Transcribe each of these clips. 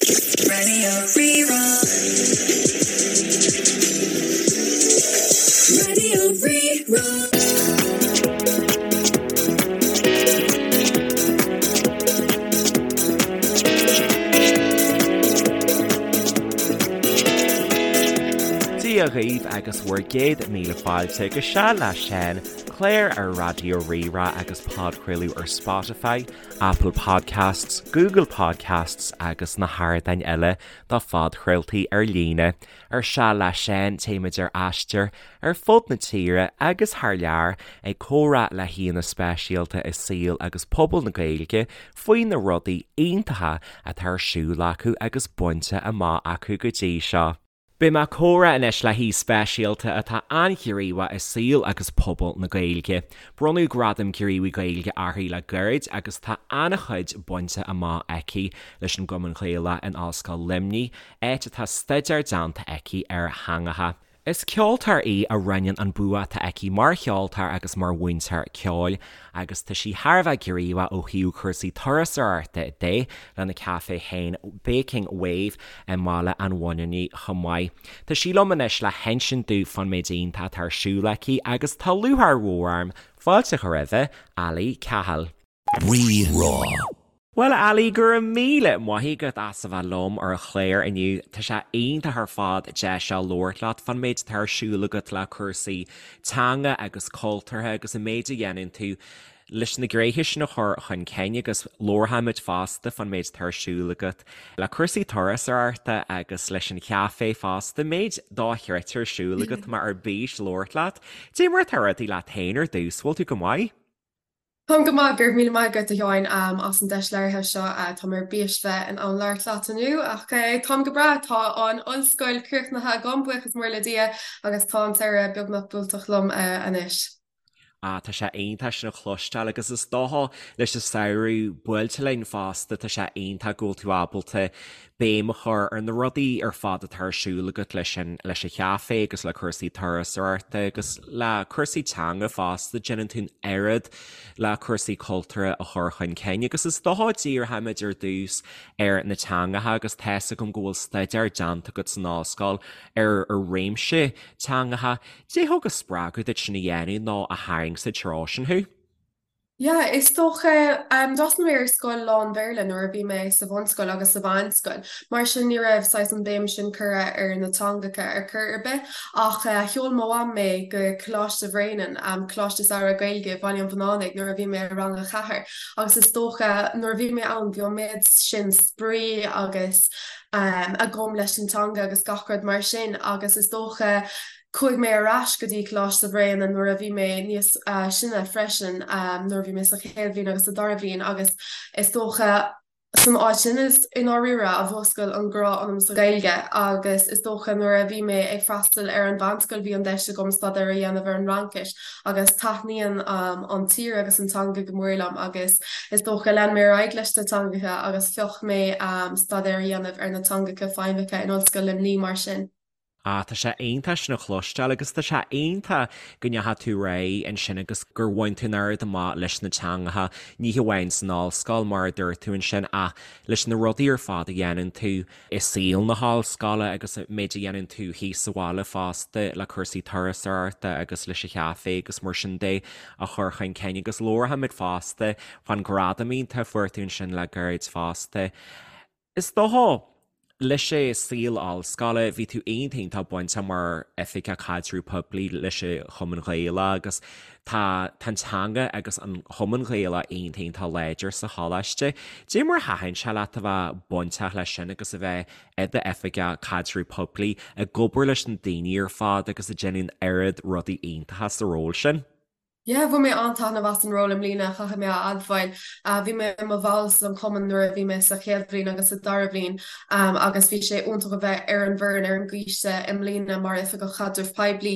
Radio Rí-Rá. Radio Rí-Rá. Dia dhaoibh agus bhur gcéad míle fáilte go Seal le Seán, clár ar Raidió Rí-Rá agus podchraoladh ar Spotify, Apple Podcasts, Google Podcasts agus na hardáin eile do phodchraoltaí ar líne. Ar Seal le Seán téimid ar aistear ar fud na tíre agus thar lear ag comhrá le haíonna speisialta i saol agus pobal na Gaeilge faoi na rudaí iontacha atá ar siúl acu agus bainte amach acu go dtí seo. Beidh mé ag comhrá anois le haoi speisialta atá an-ghníomhach i saol agus pobal na Gaeilge. Bronnadh Gradam Gníomhaí Gaeilge uirthi le gairid agus tá an-chuid bainte amach aici leis an gCumann Gaelach in Ollscoil Luimnigh, áit atá staidéar déanta aici ar theangacha. Is ceoltóir í a roinneann an bua atá aici mar cheoltóir agus mar mhúinteoir ceoil agus tá sí thar a bheith gníomhach ó thaobh cúrsaí turasóireachta de lena caifé féin Baking Wave i mBaile an Bhuinneánaigh chomh maith. Tá sí liom anois le hinsint domh fán méid iontach atá ar siúl aici agus tá lúcháir mhór orm fáilte a chur roimhe, Ali Cahill. Rí-Rá. Bhuel, a Ali, go raibh míle maith agat as a bheith liom ar an chlár inniu. Tá sé iontach ar fad deis seo labhairt leat fán méid atá ar siúl agat le cúrsaí teanga agus cultúrtha agus an méid a dhéanann tú leis na gnéithe sin a chur chun cinn agus labharfaimid fosta fán méid atá ar siúl agat le cúrsaí turasóireachta agus leis an chaifé fosta, méid dochreidte ar siúl agat, tá mé ar bís labhairt leat. Cad é mar atá rudaí leat féin ar dtús, bhfuil tú go maith? Táim go maith, go raibh míle maith agat a Sheáin as an deis labhartha seo. Tá mé ar bís bheith in ann labhairt leat inniu ach táim go breá. Tá an ollscoil críochnaithe agam, buíochas mór le Dia, agus tá an samhradh beagnach buailteach liom anois. Ah, tá sé iontach sin a chloisteáil agus is dócha leis an samhradh buailte linn fosta, tá sé iontach go bhfuil tú ábalta béim a chur ar na rudaí ar fad atá ar siúl agat leis an leis an chaifé agus le cúrsaí turasóireachta agus le cúrsaí teanga fosta, déanann tú an oiread le cúrsaí cultúrtha a chur chun cinn agus is dócha díreoimid ar dtús ar na teangacha agus tá's agam go bhfuil staidéar déanta agat san ollscoil ar ar réimse teangacha. Cad é thug an spreagadh duit sin a dhéanamh nó a tharraing sa treo sin thú? Yeah, is dócha, d'fhreastail mé ar scoil lán-Bhéarla nuair a bhí mé sa bhunscoil agus sa mheánscoil, mar sin ní raibh saghas an béim sin curtha ar na teangacha ar chor ar bith. Ach sheol mo mham mé go Coláiste Bhréanainn, Coláiste Samhraidh Gaeilge i Baile an Bhuinneánaigh nuair a bhí mé i rang a cheathair agus is dócha nuair a bhí mé ann bhí an méid sin spraoi agus agam leis an teanga agus gach rud mar sin agus is dócha Chuaigh mé ar ais go dtí Coláiste Bhréanainn nuair a bhí mé níos sine freisin, nuair a bhí mé sa chéad bhliain agus sa dara bhliain agus is dócha san áit sin is i ndáiríre a mhúscail an grá ionam sa Ghaeilge agus is dócha nuair a bhí mé ag freastal ar an mheánscoil bhí an deis agam staidéar a dhéanamh ar an Fhraincis agus taitníonn an tír agus an teanga go mór liom agus is dócha lean mé ar aghaidh leis na teangacha agus phioc mé staidéar a dhéanamh ar na teangacha feidhmeacha in Ollscoil Luimnigh mar sin. Ah, tá sé iontach sin a chloisteáil agus tá sé iontach go ndeachaigh tú ar aghaidh ansin agus gur bhain tú an oiread amach leis na teangacha, ní hamháin san ollscoil mar a dúirt tú ansin ach leis na rudaí ar fad a dhéanann tú i saol na hollscoile agus an méid a dhéanann tú thíos sa bhaile fosta le cúrsaí turasóireachta agus leis an chaifé agus mar sin de a chur chun cinn agus labharfaimid fosta fán ghradam iontach a fuair tú ansin le gairid fosta. Is dócha, leis an saol ollscoile, bhí tú iontach iontach bainteach mar Oifigeach Caidreamh Poiblí leis an Chumann Ghaelach agus tá tá an teanga agus an Chumann Ghaelach iontach iontach láidir sa choláiste. Cad é mar a thaitin sé leat a bheith bainteach leis sin agus a bheith i d'Oifigeach Caidreamh Poiblí ag obair leis na daoine ar fad agus ag déanamh an oiread rudaí iontacha sa ról sin? Yeah, bhain mé an-taitneamh as an ról i mbliana, caithfidh mé a admháil. Bhí mé i mo bhall san chumann nuair a bhí mé sa chéad bhliain agus sa dara bhliain agus bhí sé iontach a bheith ar an bhfoireann ar an gcoiste i mbliana mar Oifigeach Chaidrimh Poiblí.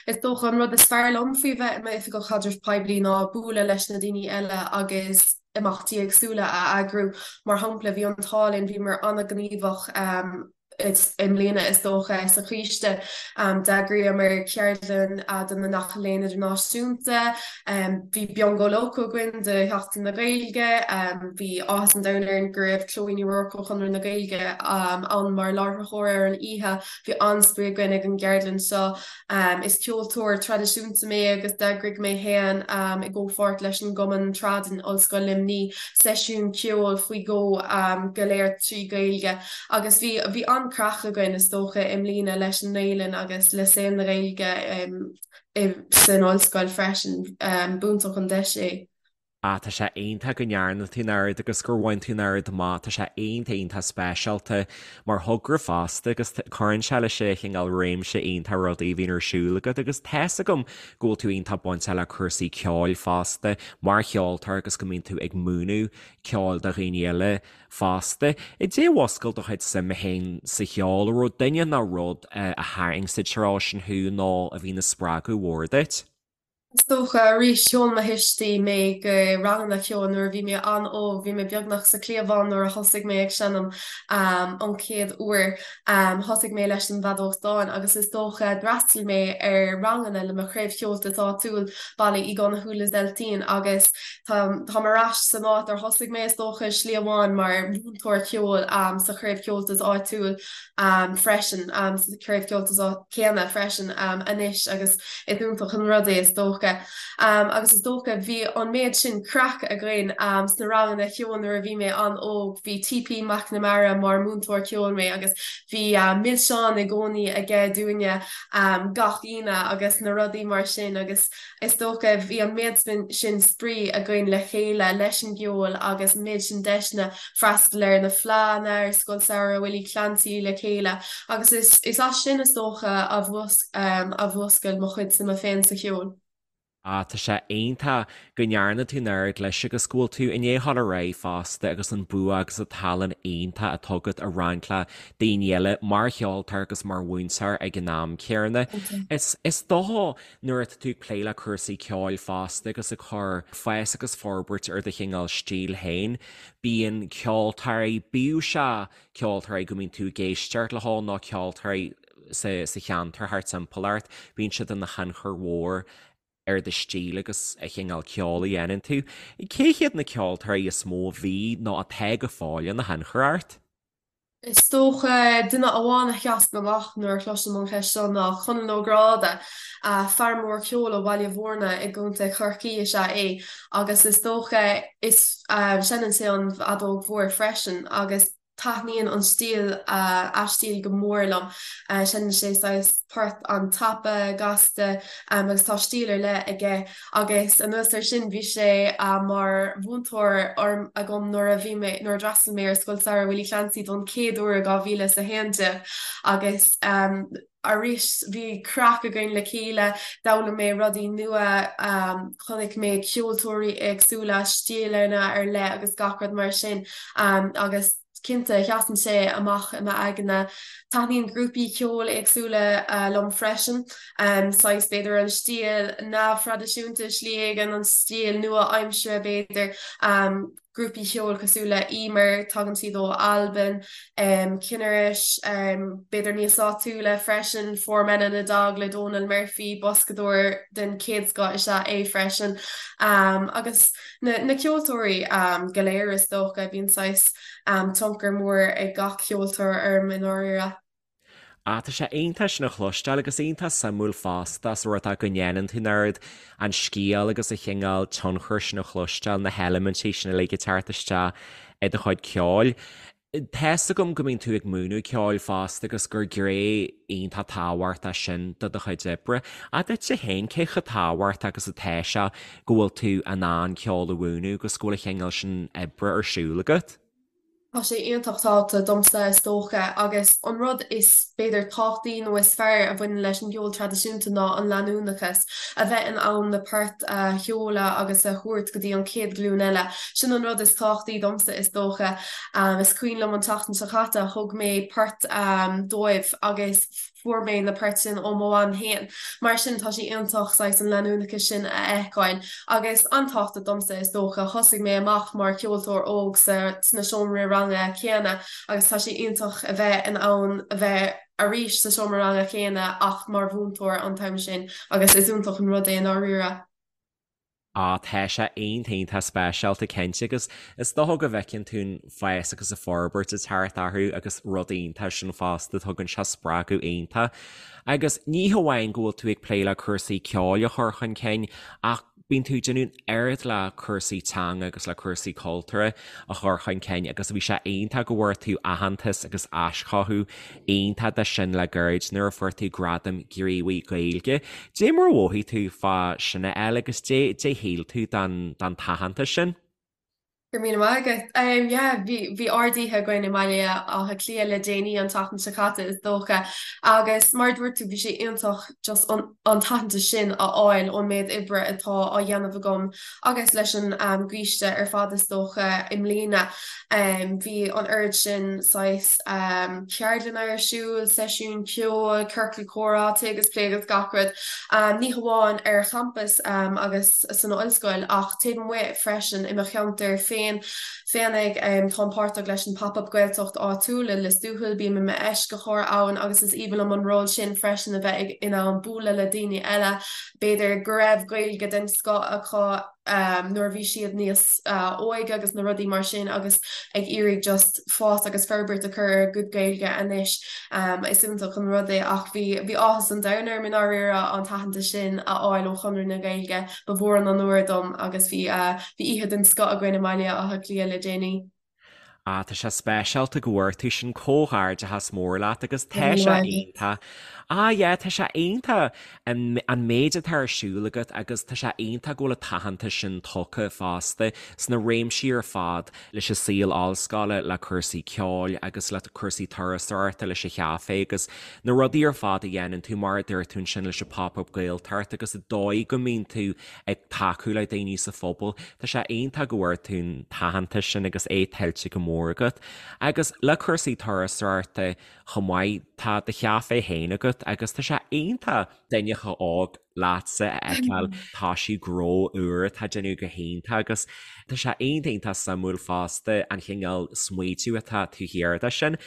Is dócha an rud is fearr liom faoi bheith i m'Oifigeach Chaidrimh Poiblí ná bualadh leis na daoine eile agus imeachtaí éagsúla a eagrú. Mar shampla, bhí an t-ádh linn, bhíomar an-ghníomhach. I mbliana, is dócha, sa choiste, d'eagraíomar ceardlann do na Mic Léinn Idirnáisiúnta, bhí Biongó Lócó againn do Sheachtain na Gaeilge, bhí áthas an domhain orainn go raibh Chloe Ní Ruairc ó Chonradh na Gaeilge ann mar láithreoir ar an oíche, bhí an-spraoi againn ag an gceardlann seo. Is ceoltóir traidisiúnta mé agus d'eagraigh mé féin, i gcomhpháirt leis an gCumann Trad in Ollscoil Luimnigh, seisiún ceoil faoi dhó, go léir trí Ghaeilge. Agus bhí, bhí an-chraic againn is dócha i mbliana leis an nGaelainn agus le saol na Gaeilge san ollscoil freisin. B'iontach an deis é. Ah, tá sé iontach go ndearna tú an oiread agus gur bhain tú an oiread amach. Tá sé iontach, iontach speisialta mar thogra fosta agus cuireann sé leis an chineál réimse iontach rudaí a bhíonn ar siúl agat agus tá's agam go bhfuil tú iontach bainteach le cúrsaí ceoil fosta mar cheoltóir agus go mbíonn tú ag múineadh ceoil do dhaoine eile fosta. Caidé a mhúscail do chuid suime féin sa cheol, an raibh duine nó rud a tharraing sa treo sin thú nó a bhí ina spreagadh mhór duit? Is dócha, arís, sheol mo thuistí mé go ranganna ceoil nuair a bhí mé an-óg, bhí mé beagnach sa chliabhán nuair a thosaigh mé ag seinm an chéad uair. Thosaigh mé leis an bhfeadóg stáin agus is dócha d'fhreastail mé ar ranganna le mo chraobh Cheoltais áitiúil, Baile Uí Dhonnchú Lios Eiltín, agus táim ar ais san áit ar thosaigh mé, is dócha, i slí amháin, mar mhúinteoir ceoil sa chraobh Cheoltais áitiúil freisin, sa chraobh Cheoltais céanna freisin anois agus is iontach an rud é is dócha. Agus is dócha bhí an méid sin craic againn sna ranganna ceoil nuair a bhí mé an-óg, bhí TP McNamara mar múinteoir ceoil mé agus bhí milseáin i gcónaí aige dúinne gach Aoine agus na rudaí mar sin agus is dócha bhí an méid sin spraoi againn le chéile leis an gceol agus an méid sin deiseanna freastal ar na fleánna ar Scoil Samhraidh Willie Clancy le chéile agus is is as sin is dócha a a mhúscail mo chuid suime féin sa cheol. Ah, tá sé iontach go ndearna tú an oiread leis agus go bhfuil tú i ndiaidh dhul ar aghaidh fosta agus an bua agus an tallann iontach atá agat a roinnt le daoine eile mar cheoltóir agus mar mhúinteoir ag an am céanna. Is is dócha nuair atá tú ag plé le cúrsaí ceoil fosta agus ag cur fás agus forbairt ar do chineál stíl féin, Bíonn ceoltóirí, bíodh sé ceoltóirí go mbíonn tú ag éisteacht leo nó ceoltóirí sa sa cheantar thart timpeall ort, bíonn siad ina thionchar mhór ar do stíl agus an chineál ceoil a dhéanann tú. Cé hiad na ceoltóirí is mó a bhí nó atá go fóill ina thionchar ort? Is dócha duine amháin a sheasann amach nuair a chloisim an cheist seo ná Conall Ó Gráda. Fear mór ceoil ó Bhaile Mhúirne i gContae Chorcaí is ea é agus is dócha is seinneann sé an fheadóg mhór freisin agus taitníonn an stíl, a stíl go mór liom. Seinneann sé saghas port an-tapa, gasta agus tá stíl ar leith aige. Agus anuas air sin, bhí sé mar mhúinteoir agam nuair a bhí mé, nuair a d'fhreastail mé ar Scoil Samhraidh Willie Clancy don chéad uair i 2011 agus arís bhí craic againn le chéile, d'fhoghlaim mé rudaí nua, chonaic mé ceoltóirí éagsúla, stíleanna ar leith agus gach rud mar sin agus Cinnte, sheasann sé amach i m'aigne. Taitníonn grúpaí ceoil éagsúla liom freisin. Saghas, b'fhéidir, an stíl neamhthraidisiúnta i slí éigin, an stíl nua-aimseartha b'fhéidir. Grúpaí ceoil cosúil le Emer, tagann siad ó Albain, Cinnaris, b'fhéidir níos áitiúla freisin, Four Men and a Dog le Dónal Murphy, boscadóir den chéad scoth is ea é freisin. Agus. Na ceoltóirí go léir is dócha, bíonn saghas tionchar mór ag gach ceoltóir orm i ndáiríre. Ah, tá sé iontach sin a chloisteáil agus iontach suimiúil fosta sa rud go ndéanann tú an oiread an scéal agus an chineál tionchair sin a chloisteáil, na heilimintí sin uilig ag teacht isteach i do chuid ceoil. Tá's agam go mbíonn tú ag múineadh ceoil fosta agus gur gné iontach tábhachtach sin de do chuid oibre. Ach duitse féin, cé chomh tábhachtach agus atá sé go bhfuil tú in ann ceol a mhúineadh agus go bhfuil an chineál sin oibre ar siúl agat? Tá sé iontach tábhachtach domsa is dócha agus an rud is b'fhéidir tábhachtaí nó is fearr a bhaineann leis an gceol traidisiúnta ná an leanúnachas, a bheith in ann na poirt a sheoladh agus a thabhairt go dtí an chéad ghlúin eile. Sin an rud is tábhachtaí domsa is dócha. Is cuimhin liom an tseachtain seo caite, thug mé port dóibh agus. Fuair mé na poirt sin ó mo mham féin. Mar sin tá sé iontach saghas an leanúnachas sin a fheiceáil. Agus an-tábhachtach domsa is dócha. Thosaigh mé amach mar cheoltóir óg sa sna seomraí ranga céanna agus tá sé iontach a bheith in ann a bheith arís sa seomra ranga céanna ach mar mhúinteoir an t-am sin agus is iontach an rud é i ndáiríre. Á, tá sé iontach iontach speisialta cinnte agus is dócha go bhfeiceann tú an fás agus an forbairt ag teacht orthu agus rud iontach sin fosta, tugann sé spreagadh iontach. Agus ní hamháin go bhfuil tú ag plé le cúrsaí ceoil a chur chun cinn ach bíonn tú ag déanamh an oiread le cúrsaí teanga agus le cúrsaí cultúrtha a chur chun cinn agus bhí sé iontach go bhfuair tú aitheantas agus aischothú iontach de sin le gairid nuair a fuair tú Gradam Gníomhaí Gaeilge. Dé mar a mhothaigh tú fá sin a fháil agus dé dé shíl tú den den t-aitheantas sin? Go raibh míle maith agat. Yeah, bhí bhí ard-oíche againn i mBaile Átha Cliath le déanaí an tseachtain seo caite is dócha agus mar a dúirt tú bhí sé iontach just an an t-aitheantas sin a fháil ón méid oibre atá á dhéanamh agam agus leis an gcoiste ar fad is dócha i mbliana. Bhí an oiread sin saghas ceardlanna ar siúl, seisiúin ceoil, ciorcal comhrá, tae agus plé agus gach rud, ní hamháin ar champas agus san ollscoil ach taobh amuigh freisin i mo cheantar féin. Féinig, táim páirteach leis an Pop Up Gaeltacht áitiúil i Lios Tuathail, bím i m'eisceachóir ann agus is aoibhinn liom an ról sin freisin a bheith in ann bualadh le daoine eile, b'fhéidir go raibh Gaeilge den scoth acu nuair a bhí siad níos óige agus na rudaí mar sin agus ag iarraidh just fás agus forbairt a chur ar a gcuid Gaeilge anois. Is iontach an rud é ach bhí bhí áthas an domhain orm i ndáiríre an t-aitheantas sin a fháil ó Chonradh na Gaeilge. Ba mhór an onóir dom agus bhí bhí oíche den scoth againn i mBaile Átha Cliath le déanaí. Ah, tá sé speisialta go bhfuair tú sin, comhghairdeachas mór leat agus tá sé iontach. Ah yeah, tá sé iontach an an méid atá ar siúl agat agus tá sé iontach go bhfuil an t-aitheantas sin tugtha fosta sna réimsí ar fad leis an saol ollscoile, le cúrsaí ceoil agus le cúrsaí turasóireachta, leis an chaifé agus na rudaí ar fad a dhéanann tú mar a dúirt tú ansin leis an Pop-Up Gaeltacht agus an dóigh go mbíonn tú ag tacú le daoine sa phobal. Tá sé iontach go bhfuair tú an t-aitheantas sin agus é tuillte go mór agat. Agus le cúrsaí turasóireachta chomh maith, tá do chaifé féin agat agus tá sé iontach duine chomh hóg leatsa a fheiceáil ag toisiú gnó úr atá ag déanamh go hiontach agus tá sé iontach iontach suimiúil fosta an chineál smaoitiú atá taobh thiar de sin.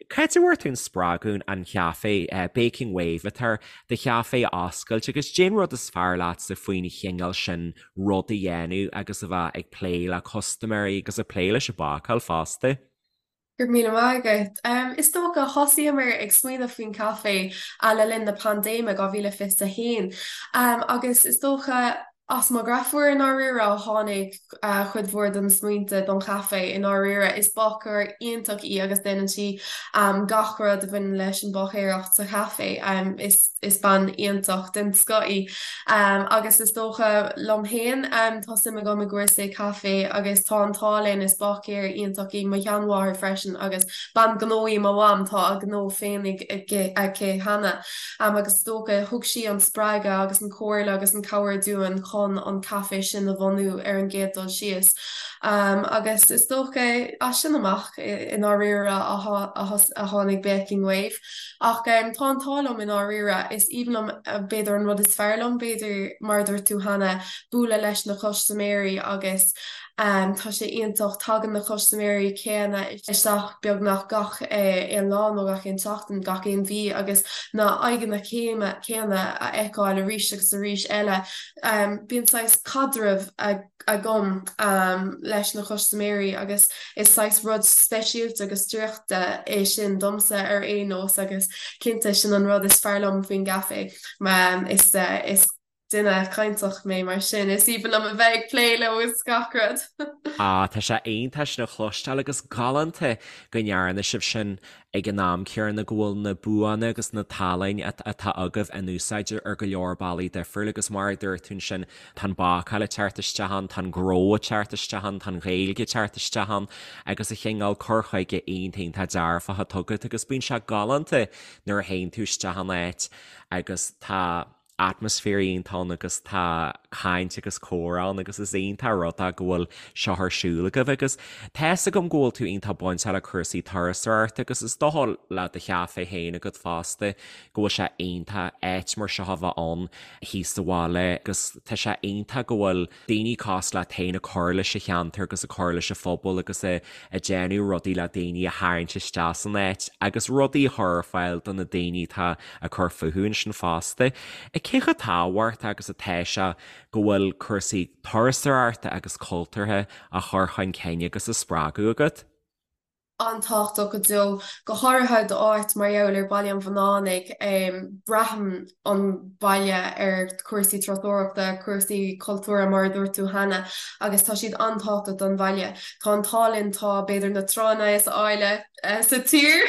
Cá háit a bhfuair tú an spreagadh an chaifé Baking Wave atá ar do chaifé a oscailt agus cén rud is fearr leatsa faoin chineál sin rud a dhéanamh agus a bheith ag plé le custaiméirí agus ag plé leis an bácáil fosta. Go raibh míle maith agat. Is dócha, thosaíomar ag smaoineamh faoin chaifé le linn na paindéime, 2021, agus is dócha, As mo dheirfiúr i ndáiríre a tháinig cuid mhór de na smaointe don chaifé i ndáiríre. Is bácóir iontach í agus déanann sí gach rud a bhaineann leis an bháicéireacht sa chaifé. Is bean iontach den scoth í. Agus is dócha liom féin, tá suim agam i gcúrsaí caife agus tá an t-ádh linn, is báicéir iontach í mo sheanmháthair freisin agus bean gnó í mo mham, tá a gnó féinig aici cheana. Agus is dócha, thug sí an spreagadh agus an chomhairle agus an cabhair dúinn chun an caifé sin a bhunú ar an gcéad dul síos. Agus is dócha, as sin amach, i ndáiríre, a tháinig Baking Wave. Ach tá an t-ádh liom i ndáiríre, is aoibhinn liom, b'fhéidir an rud is fearr liom, b'fhéidir, mar a dúirt tú cheana, bualadh leis na custaiméirí agus Tá sé iontach, tagann na custaiméirí céanna isteach beagnach gach aon lá nó gach aon tseachtain, gach aon mhí agus na aghaidheanna céanna a fheiceáil arís agus arís eile. Bíonn saghas caidreamh agam leis na custaiméirí agus is saghas rud speisialta agus draíochta é sin domsa ar aon nós agus cinnte sin an rud is fearr liom faoin gcaifé. Is. Duine cainteach mé mar sin is aoibhinn liom a bheith ag plé leo is gach rud. Ah, tá sé iontach sin a chloisteáil agus galánta go ndearna sibh sin ag an am céanna go bhfuil na buanna agus na tallainne atá agaibh in úsáid ar go leor bealaí difriúil agus mar a dúirt tú ansin tá an bácáil ag teacht isteach ann, tá an gnó ag teacht isteach ann, tá an Ghaeilge ag teacht isteach ann agus an chineál cur chuige iontach iontach dearfach atá agat agus bíonn sé galánta nuair a théann tú isteach in áit agus tá atmaisféar iontach ann agus tá caint agus comhrá ann agus is iontach rud é go bhfuil seo ar siúl agaibh agus tá fhios agam go bhfuil tú iontach bainteach le cúrsaí turasóireachta agus is dócha le do chaife féin agat fosta go bhfuil sé iontach áit mar seo a bheith ann thíos sa bhaile agus tá sé iontach go bhfuil daoine cosúil leat féin ag cur leis an cheantar agus ag cur leis an phobal agus ag déanamh rudaí le daoine a tharraingt isteach san áit agus rudaí a chur ar fáil do na daoine atá ag cur fúthu ansin fosta. Cé chomh tábhachtach agus atá sé go bhfuil cúrsaí turasóireachta agus cultúrtha á chur chun cinn agus á spreagadh agat? an-tábhachtach go deo, go háirithe d'áit mar gheall ar Baile an Bhunánaigh. Braitheann an baile ar chúrsaí turasóireachta, cúrsaí cultúrtha mar a dúirt tú cheana, agus tá siad an-tábhachtach don bhaile. Tá an t-ádh linn, tá b'fhéidir na tránna is áille sa tír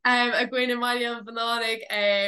againn i mBaile an Bhunánaigh,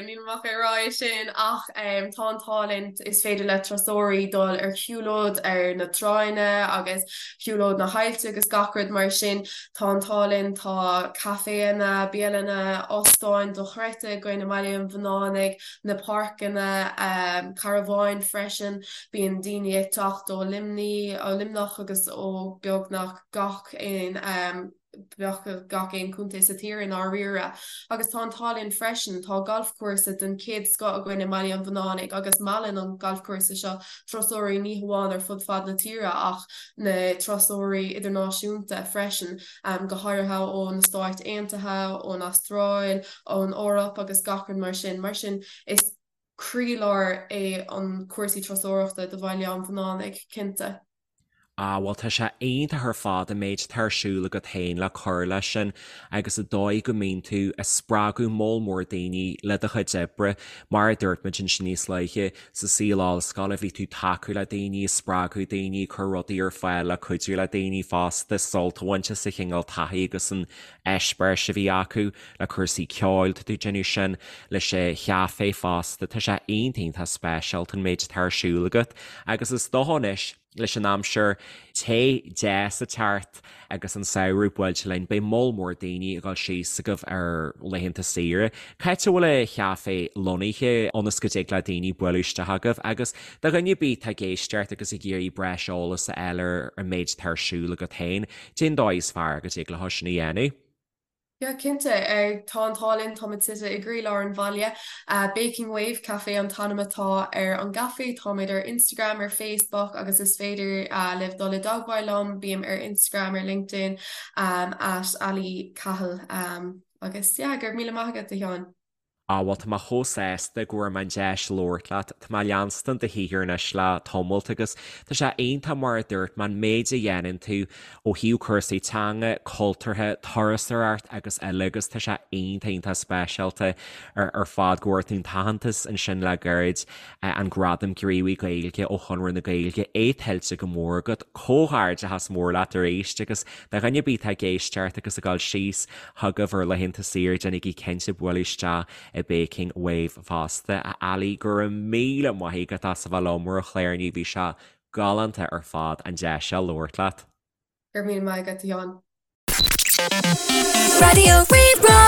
nílim ach ag rá é sin, ach tá an t-ádh linn, is féidir le turasóirí dul ar shiúlóid ar na tránna agus shiúlóid na haillte agus gach rud mar sin. Tá an t-ádh linn, tá caiféanna, bialanna, óstáin dochreidte againn i mBaile an Bhunánaigh, na páirceanna, carabháin freisin. Bíonn daoine ag teacht ó Luimní, ó Luimneach agus ó beagnach gach aon beagnach gach aon chontae sa tír i ndáiríre. Agus tá an t-ádh linn freisin, tá galfchúrsa den chéad scoth againn i mBaile an Bhunánaigh agus meallann an galfchúrsa seo turasóirí ní hamháin ar fud fad na tíre ach na turasóirí idirnáisiúnta freisin, go háirithe ó na Stáit Aontaithe, ón Astráil, ón Eoraip agus gach rud mar sin. Mar sin, is croílár é an cúrsaí turasóireachta do Bhaile an Bhunánaigh, cinnte. Ah, bhuel tá sé iontach ar fad an méid atá ar siúl agat féin le cur leis sin agus an dóigh go mbíonn tú ag spreagadh moll mór daoine le do chuid oibre. Mar a dúirt muid ansin níos luaithe, sa saol ollscoile bhí tú ag tacú le daoine, ag spreagadh daoine, ag cur rudaí ar fáil le cuidiú le daoine fosta sult a bhaint as an chineál taithí agus an eispéiris a bhí acu le cúrsaí ceoil, tá tú ag déanamh sin leis an chaifé fosta. Tá sé iontach iontach speisialta an méid atá ar siúl agat agus is dócha anois, Leis an aimsir te deas ag teacht agus an samhradh buailte linn, beidh moll mór daoine ag dul síos chugaibh ar laethanta saoire. Cá háit a bhfuil an chaifé lonnaithe ionas go dtig le daoine bualadh isteach chugaibh agus do dhuine ar bith atá ag éisteacht agus ag iarraidh breis eolais a fháil ar an méid atá ar siúl agat féin, cén dóigh is fearr go dtig leo sin a dhéanamh? Yeah, cinnte. Tá an t-ádh linn, táimid suite i gcroílár an bhaile. Baking Wave Café an t-ainm atá ar an gcaifé. Táimid ar Instagram, ar Facebook agus is féidir libh dul i dteagmháil liom. Bím ar Instagram, ar LinkedIn, at Ali Cahill. Agus yeah, go raibh míle maith agat, a Sheáin. Á, bhuel, tá mé chomh sásta go bhfuair mé an deis labhairt leat. Tá mé ag leanstan do shaothar anois le tamalt agus tá sé iontach mar a dúirt mé, an méid a dhéanann tú ó thaobh cúrsaí teanga, cultúrtha, turasóireacht agus eile agus tá sé iontach, iontach speisialta ar fad go bhfuair tú an t-aitheantas ansin le gairid, an Gradam Gníomhaí Gaeilge ó Chonradh na Gaeilge, é tuillte go mór agat. Comhghairdeachas mór leat arís agus do dhuine ar bith atá ag éisteacht agus ag dul síos chugaibh ar laethanta saoire, déanaigí cinnte bualadh isteach i Baking Wave fosta. A Ali, go raibh míle maith agat as a bheith liom ar an chlár inniu, bhí sé galánta ar fad an deis seo labhairt leat. Go raibh míle maith agat, a Sheáin. Raidió Rí-Rá.